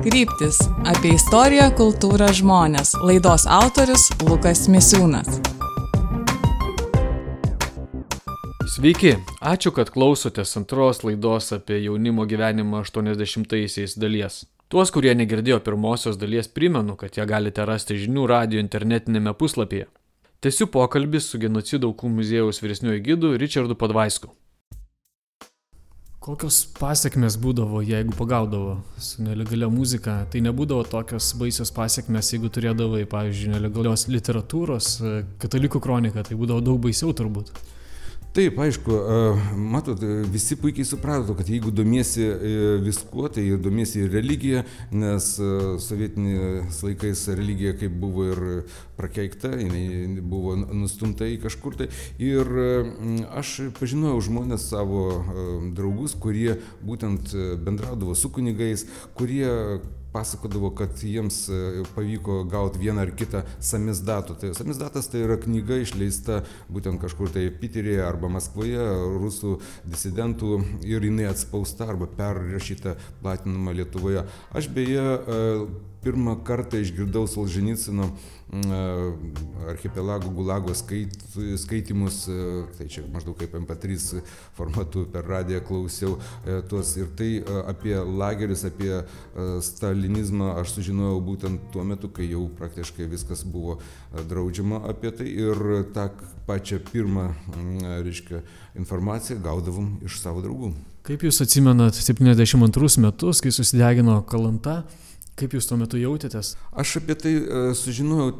Kryptis – apie istoriją, kultūrą, žmones. Laidos autorius Lukas Misiūnas. Sveiki, ačiū, kad klausotės antros laidos apie jaunimo gyvenimą 80-aisiais dalies. Tuos, kurie negirdėjo pirmosios dalies, primenu, kad ją galite rasti žinių radijo internetinėme puslapyje. Tęsiu pokalbį su Genocido aukų muziejaus vyresniuoju gidu Richardu Podvaisku. Kokios pasiekmes būdavo, jeigu pagaudavo su nelegalia muzika? Tai nebūdavo tokios baisios pasiekmes, jeigu turėdavai, pavyzdžiui, nelegalios literatūros, katalikų kroniką, tai būdavo daug baisiau turbūt. Taip, aišku, matot, visi puikiai suprato, kad jeigu domiesi viskuo, tai domiesi ir religiją, nes sovietiniais laikais religija kaip buvo ir prakeikta, jinai buvo nustumta į kažkur tai. Ir aš pažinojau žmonės savo draugus, kurie būtent bendraudavo su kunigais, kurie pasakodavo, kad jiems pavyko gauti vieną ar kitą samizdatų. Tai samizdatas tai yra knyga išleista būtent kažkur tai Piteryje arba Maskvoje, rusų disidentų, ir jinai atspausta arba perrašyta, platinama Lietuvoje. Aš beje pirmą kartą išgirdau Solženicino archipelago Gulago skaitymus, tai čia maždaug kaip MP3 formatu per radiją klausiau tuos, ir tai apie lagerius, apie stalinizmą aš sužinojau būtent tuo metu, kai jau praktiškai viskas buvo draudžiama apie tai, ir tą pačią pirmą, informaciją gaudavom iš savo draugų. Kaip jūs atsimenat 72 metus, kai susidegino Kalanta? Kaip jūs tuo metu jautėtės? Aš apie tai sužinojau,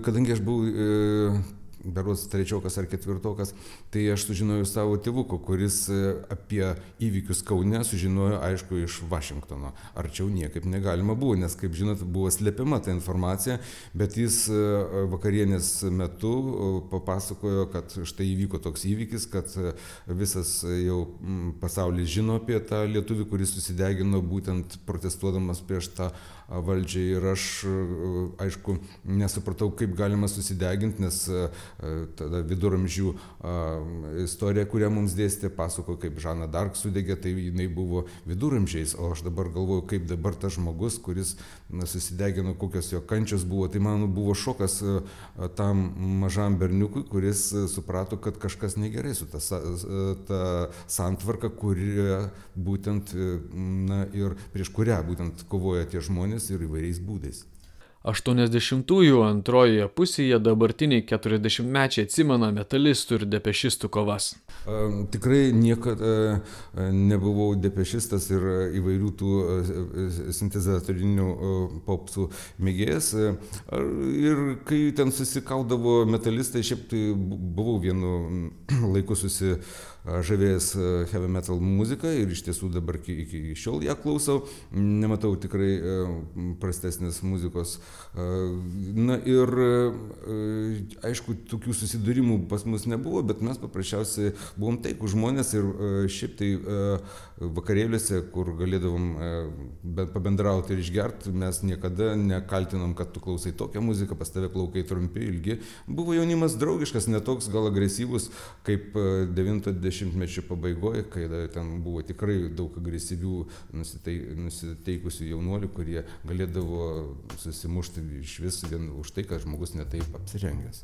kadangi aš buvau berods trečiokas ar ketvirtokas, tai aš sužinojau savo tėvuko, kuris apie įvykius Kaune sužinojo, aišku, iš Vašingtono. Arčiau niekaip negalima buvo, nes, kaip žinot, buvo slepiama ta informacija, bet jis vakarienės metu papasakojo, kad štai įvyko toks įvykis, kad visas jau pasaulis žino apie tą lietuvį, kuris susidegino būtent protestuodamas prieš tą valdžią, ir aš, aišku, nesupratau, kaip galima susideginti, nes tada viduramžių istorija, kurią mums dėstė, pasako, kaip Žana Dark sudegė, tai jinai buvo viduramžiais, o aš dabar galvoju, kaip dabar tas žmogus, kuris susidegino, kokios jo kančios buvo. Tai man buvo šokas tam mažam berniukui, kuris suprato, kad kažkas negerai su ta santvarka, kurie būtent, ir prieš kurią būtent kovoja tie žmonės ir įvairiais būdais. 80-ųjų antrojoje pusėje dabartiniai 40-mečiai atsimena metalistų ir depešistų kovas. Tikrai niekada nebuvau depešistas ir įvairių tų sintezatorinių popsų mėgėjas. Ir kai ten susikaudavo metalistai, šiaip tai buvau vienu laiku žavėjęs heavy metal muziką, ir iš tiesų dabar iki šiol ją klausau, nematau tikrai prastesnės muzikos. Na ir aišku, tokių susidūrimų pas mus nebuvo, bet mes paprasčiausiai buvom taikūs žmonės, ir šiaip tai vakarėliuose, kur galėdavom pabendrauti ir išgerti, mes niekada nekaltinom, kad tu klausai tokią muziką, pas tave plaukai trumpi, ilgi. Buvo jaunimas draugiškas, netoks gal agresyvus kaip 90-mečio pabaigoje, kai ten buvo tikrai daug agresyvių nusiteikusių jaunuolių, kurie galėdavo susimušti iš vis vien už tai, kad žmogus netaip apsirengęs.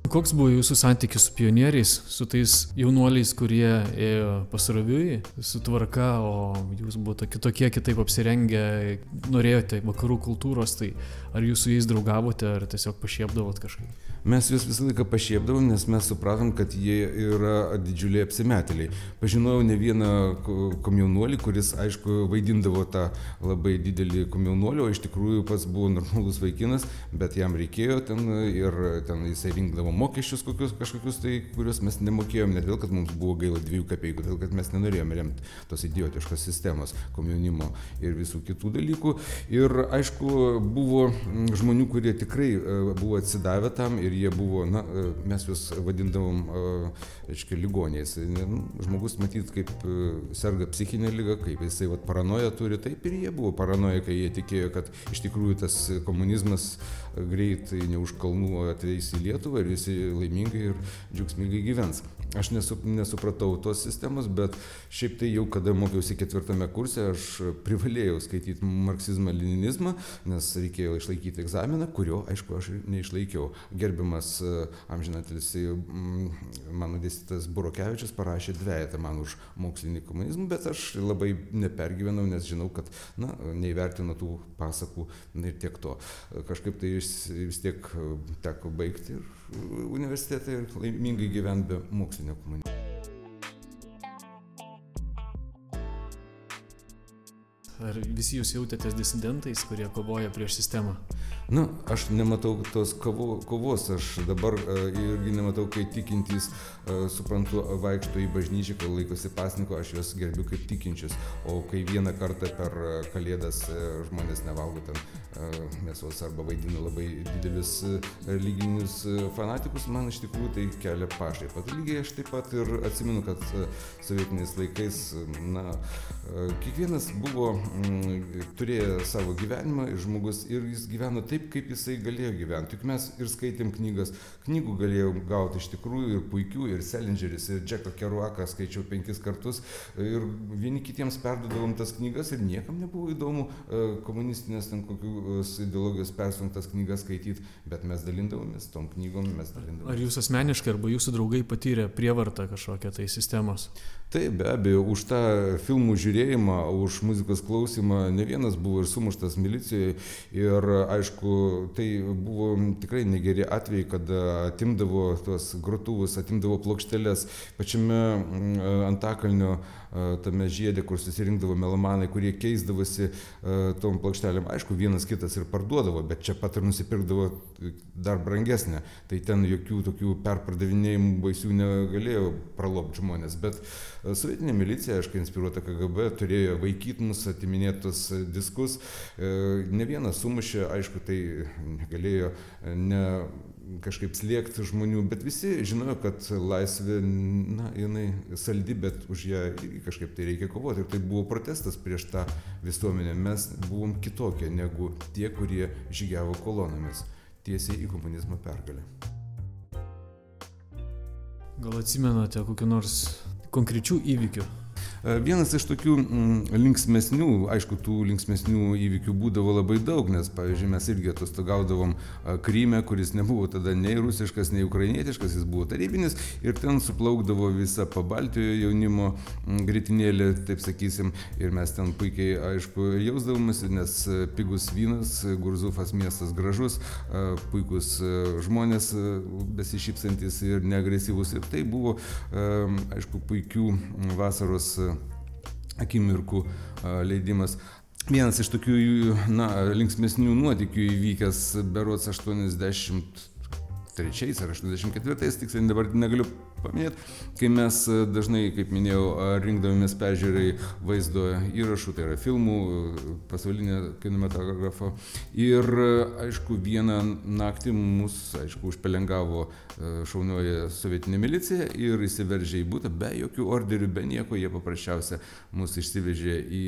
Koks buvo jūsų santykis su pionieriais, su tais jaunuoliais, kurie ėjo pasroviui, su tvarka, o jūs buvote kitokie, kitaip apsirengę, norėjote vakarų kultūros, tai ar jūs su jais draugavote, ar tiesiog pašiepdavot kažkaip? Mes juos visą laiką pašiepdavom, nes mes supratom, kad jie yra didžiuliai apsimetėliai. Pažinojau ne vieną komjaunuolį, kuris, aišku, vaidindavo tą labai didelį komjaunuolį, o iš tikrųjų pats buvo normalus vaikinas, bet jam reikėjo ten, ir ten jisai rinkdavo mokesčius kažkokius tai, kuriuos mes nemokėjom, ne todėl, kad mums buvo gaila 2 kapeikų, todėl, kad mes nenorėjome remti tos idiotiškos sistemos, komjaunimo ir visų kitų dalykų. Ir aišku, buvo žmonių, kurie tikrai buvo atsidavę tam, ir jie buvo, mes juos vadindavom, ligoniais. Žmogus matyt, kaip serga psichinė liga, kaip jisai paranoją turi, taip ir jie buvo paranoja, kai jie tikėjo, kad iš tikrųjų tas komunizmas greitai ne už kalnų ateis į Lietuvą ir visi laimingai ir džiaugsmingai gyvens. aš nesupratau tos sistemos, bet šiaip tai jau kada mokiausi 4 kurse, aš privalėjau skaityti marksizmą-leninizmą, nes reikėjo išlaikyti egzaminą, kurio, aišku, aš neišlaikiau. Gerbiamas amžinatilsį mano dėstytojas Burokevičius parašė 2 man už mokslinį komunizmą, bet aš labai nepergyvenau, nes žinau, kad neįvertino tų pasakų ir tiek to. Kažkaip tai vis tiek teko baigti ir universitetą ir laimingai gyventi be mokslinio komunizmo. Ar visi jūs jautėtės disidentais, kurie kovoja prieš sistemą? Aš nematau tos kovos, aš dabar irgi nematau, kai tikintys, suprantu, vaikšto į bažnyčią, kai laikosi pasninko, aš juos gerbiu kaip tikinčius, o kai vieną kartą per Kalėdas žmonės nevalgo ten mėsos arba vaidina labai didelius religinius fanatikus, man iš tikrųjų tai kelia pašaipą. Lygiai aš taip pat ir atsimenu, kad sovietiniais laikais, kiekvienas buvo turėjo savo gyvenimą ir žmogus ir jis gyveno taip, kaip jisai galėjo gyventi. Juk mes ir skaitėm knygas, knygų galėjom gauti iš tikrųjų ir puikių, ir Selingeris, ir Džeką Keruaką skaičiau 5 kartus ir vieni kitiems perduodavom tas knygas ir niekam nebuvo įdomu komunistinės ten kokios ideologijos persunktas knygas skaityti, bet mes dalindavomės tom knygom, Ar jūs asmeniškai arba jūsų draugai patyrė prievartą kažkokią tai sistemos? Taip, be abejo, už tą filmų žiūrėjimą, už muzikos klausimą ne vienas buvo ir sumuštas milicijoje ir aišku, tai buvo tikrai negeri atvejai, kada atimdavo tuos grotuvus, atimdavo plokšteles pačiame Antakalnio tame žiede, kur susirinkdavo melomanai, kurie keisdavosi tom plokštelėm. Aišku, vienas kitas ir parduodavo, bet čia pat ir nusipirkdavo dar brangesnę. Tai ten jokių tokių perpardavinėjimų baisių negalėjo pralopti žmonės, bet sovietinė milicija, aišku, inspiruota KGB, turėjo vaikyti mus, atiminėti tos diskus. Ne vienas sumušė, aišku, tai negalėjo kažkaip slėgti žmonių, bet visi žinojo, kad laisvė, jinai saldi, bet už ją kažkaip tai reikia kovoti. Ir tai buvo protestas prieš tą visuomenę. Mes buvom kitokie negu tie, kurie žygiavo kolonomis tiesiai į komunizmo pergalę. Gal atsimenate kokių nors konkrečių įvykių? Vienas iš tokių linksmesnių, aišku, tų linksmesnių įvykių būdavo labai daug, nes, pavyzdžiui, mes irgi atostogaudavom Kryme, kuris nebuvo tada nei rusiškas, nei ukrainietiškas, jis buvo tarybinis ir ten suplaukdavo visa Pabaltijo jaunimo gritinėlė, taip sakysim, ir mes ten puikiai, aišku, jausdavomės, nes pigus vynas, Gurzufas miestas gražus, puikus žmonės besišypsantis ir neagresyvus ir tai buvo, aišku, puikių vasaros akimirkų leidimas. Vienas iš tokių linksmesnių nuotykių įvykęs berods 83 ar 84, tiksliai dabar negaliu paminėti, kai mes dažnai, kaip minėjau, rinkdavomės peržiūrai vaizdo įrašų, tai yra filmų, pasaulinio kinematografo. Ir, aišku, vieną naktį mus, aišku, užpelengavo šaunioji sovietinė milicija ir įsiveržė į butą be jokių orderių, be nieko. Jie paprasčiausia mus išsivežė į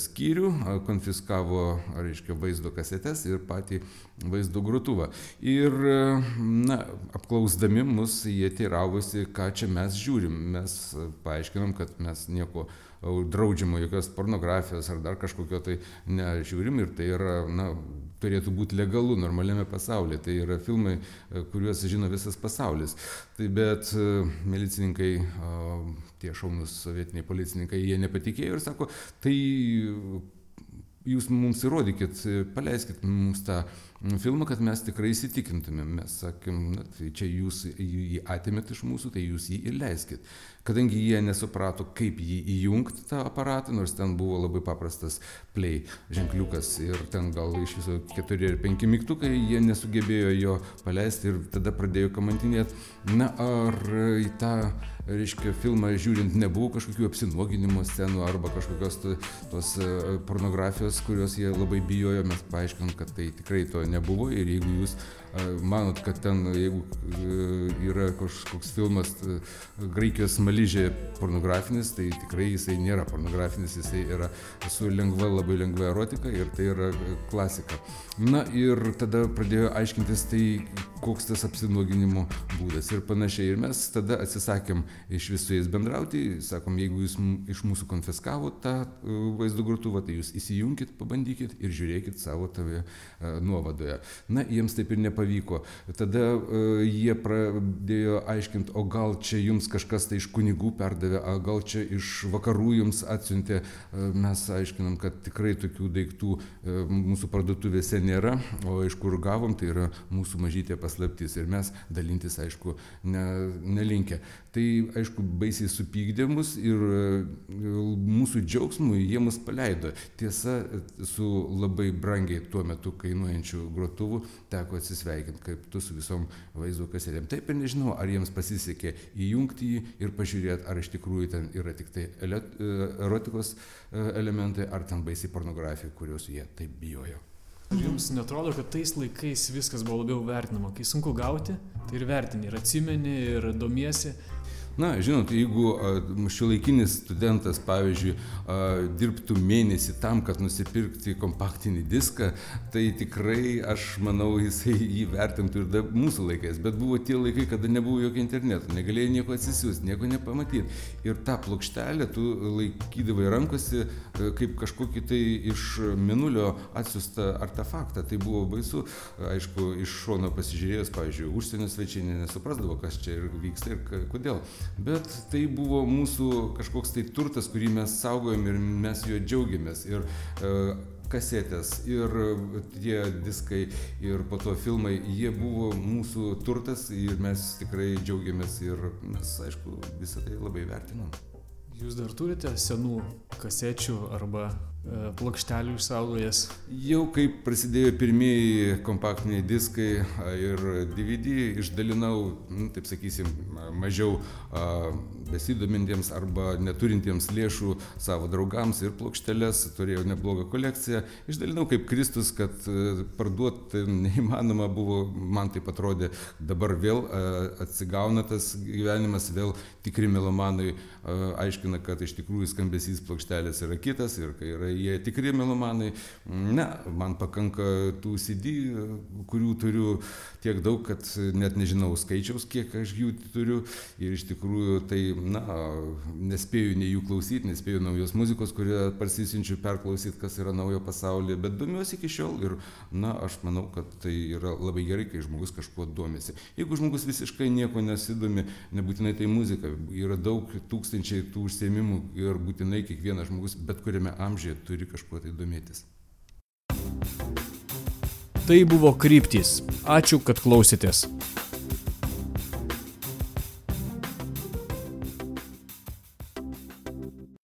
skyrių, konfiskavo, reiškia, vaizdo kasetes ir patį vaizdo grotuvą. Ir, apklausdami mus, jie teiravosi, ką čia mes žiūrim. Mes paaiškinom, kad mes nieko draudžiamo, jokios pornografijos ar dar kažkokio tai nežiūrim ir tai yra, turėtų būti legalu normaliame pasaulyje. Tai yra filmai, kuriuos žino visas pasaulis. Tai bet milicininkai, tie šaunūs sovietiniai policininkai, jie nepatikėjo ir sako, tai jūs mums įrodykit, paleiskit mums tą filmą, kad mes tikrai įsitikintumėm. Mes sakėm, tai čia jūs jį atėmėt iš mūsų, tai jūs jį ir leiskit. Kadangi jie nesuprato, kaip jį įjungti tą aparatą, nors ten buvo labai paprastas play ženkliukas ir ten gal iš viso 4 ar 5 mygtukai, jie nesugebėjo jo paleisti ir tada pradėjo kamantinėti. Ar į tą, reiškia, filmą žiūrint nebuvo kažkokių apsinuoginimo scenų arba kažkokios tos pornografijos, kurios jie labai bijojo. Mes paaiškinom, kad tai tikrai to nebuvo ir jeigu jūs manot, kad ten, jeigu yra kažkoks filmas Graikijos smaližė pornografinis, tai tikrai jisai nėra pornografinis, jisai yra su labai lengva erotika ir tai yra klasika. Na ir tada pradėjo aiškintis tai, koks tas apsinuoginimo būdas ir panašiai. Ir mes tada atsisakėm iš visų jais bendrauti, sakom, jeigu jūs iš mūsų konfiskavo tą vaizdo grotuvą, tai jūs įsijunkit, pabandykit ir žiūrėkit savo toje nuovadoje. Na, jiems taip ir nepavyko. Tada jie pradėjo aiškinti, o gal čia jums kažkas tai iš kunigų perdavė, o gal čia iš vakarų jums atsiuntė. Mes aiškinam, kad tikrai tokių daiktų mūsų parduotuvėse nėra, o iš kur gavom, tai yra mūsų mažytė paslaptis ir mes dalintis, aišku, nelinkę. Tai, aišku, baisiai supykdė mus ir mūsų džiaugsmui jie mus paleido. Tiesa, su labai brangiai tuo metu kainuojančiu grotuvu teko atsisveikinti, kaip tu su visom vaizdo kasetėm. Taip ir nežinau, ar jiems pasisekė įjungti jį ir pažiūrėti, ar iš tikrųjų ten yra tik tai erotikos elementai, ar ten baisiai pornografija, kurios jie taip bijojo. Ar jums netrodo, kad tais laikais viskas buvo labiau vertinama? Kai sunku gauti, tai ir vertini, ir atsimeni, ir domiesi. Na, žinot, jeigu šiuolaikinis studentas, pavyzdžiui, dirbtų mėnesį tam, kad nusipirkti kompaktinį diską, tai tikrai, aš manau, jisai jį vertintų ir mūsų laikais. Bet buvo tie laikai, kada nebuvo jokio interneto, negalėjai nieko atsisiųsti, nieko nepamatyti. Ir tą plokštelę tu laikydavai rankose kaip kažkokį tai iš mėnulio atsiųstą artefaktą. Tai buvo baisu. Aišku, iš šono pasižiūrėjus, pavyzdžiui, užsienio svečiai nesuprasdavo, kas čia vyksta ir kodėl. Bet tai buvo mūsų kažkoks tai turtas, kurį mes saugojom ir mes juo džiaugiamės. Ir kasetės, ir tie diskai, ir po to filmai, jie buvo mūsų turtas ir mes tikrai džiaugiamės ir mes, aišku, visą tai labai vertinam. Jūs dar turite senų kasečių arba plokštelių išsaugojęs? Jau kaip prasidėjo pirmieji kompaktiniai diskai ir DVD, išdalinau, taip sakysim, mažiau besidomintiems arba neturintiems lėšų savo draugams ir plokšteles, turėjau neblogą kolekciją. Išdalinau kaip Kristus, kad parduoti neįmanoma buvo, man taip atrodė, dabar vėl atsigauna tas gyvenimas, vėl tikri melomanai aiškina, kad iš tikrųjų skambesys plokštelės yra kitas ir kai yra jie tikri melomanai. Ne, man pakanka tų CD, kurių turiu tiek daug, kad net nežinau skaičiaus, kiek aš jų turiu ir iš tikrųjų tai, na, nespėju nei jų klausyti, nespėju naujos muzikos, kurią parsisinčiu perklausyti, kas yra naujo pasaulyje, bet domiuosi iki šiol ir, na, aš manau, kad tai yra labai gerai, kai žmogus kažkuo domisi. Jeigu žmogus visiškai nieko nesidomi, nebūtinai tai muzika, yra daug tūkstančiai tų užsiėmimų ir būtinai kiekvienas žmogus bet kuriame amžiuje turi kažkuo tai domėtis. Tai buvo Kryptys. Ačiū, kad klausėtės.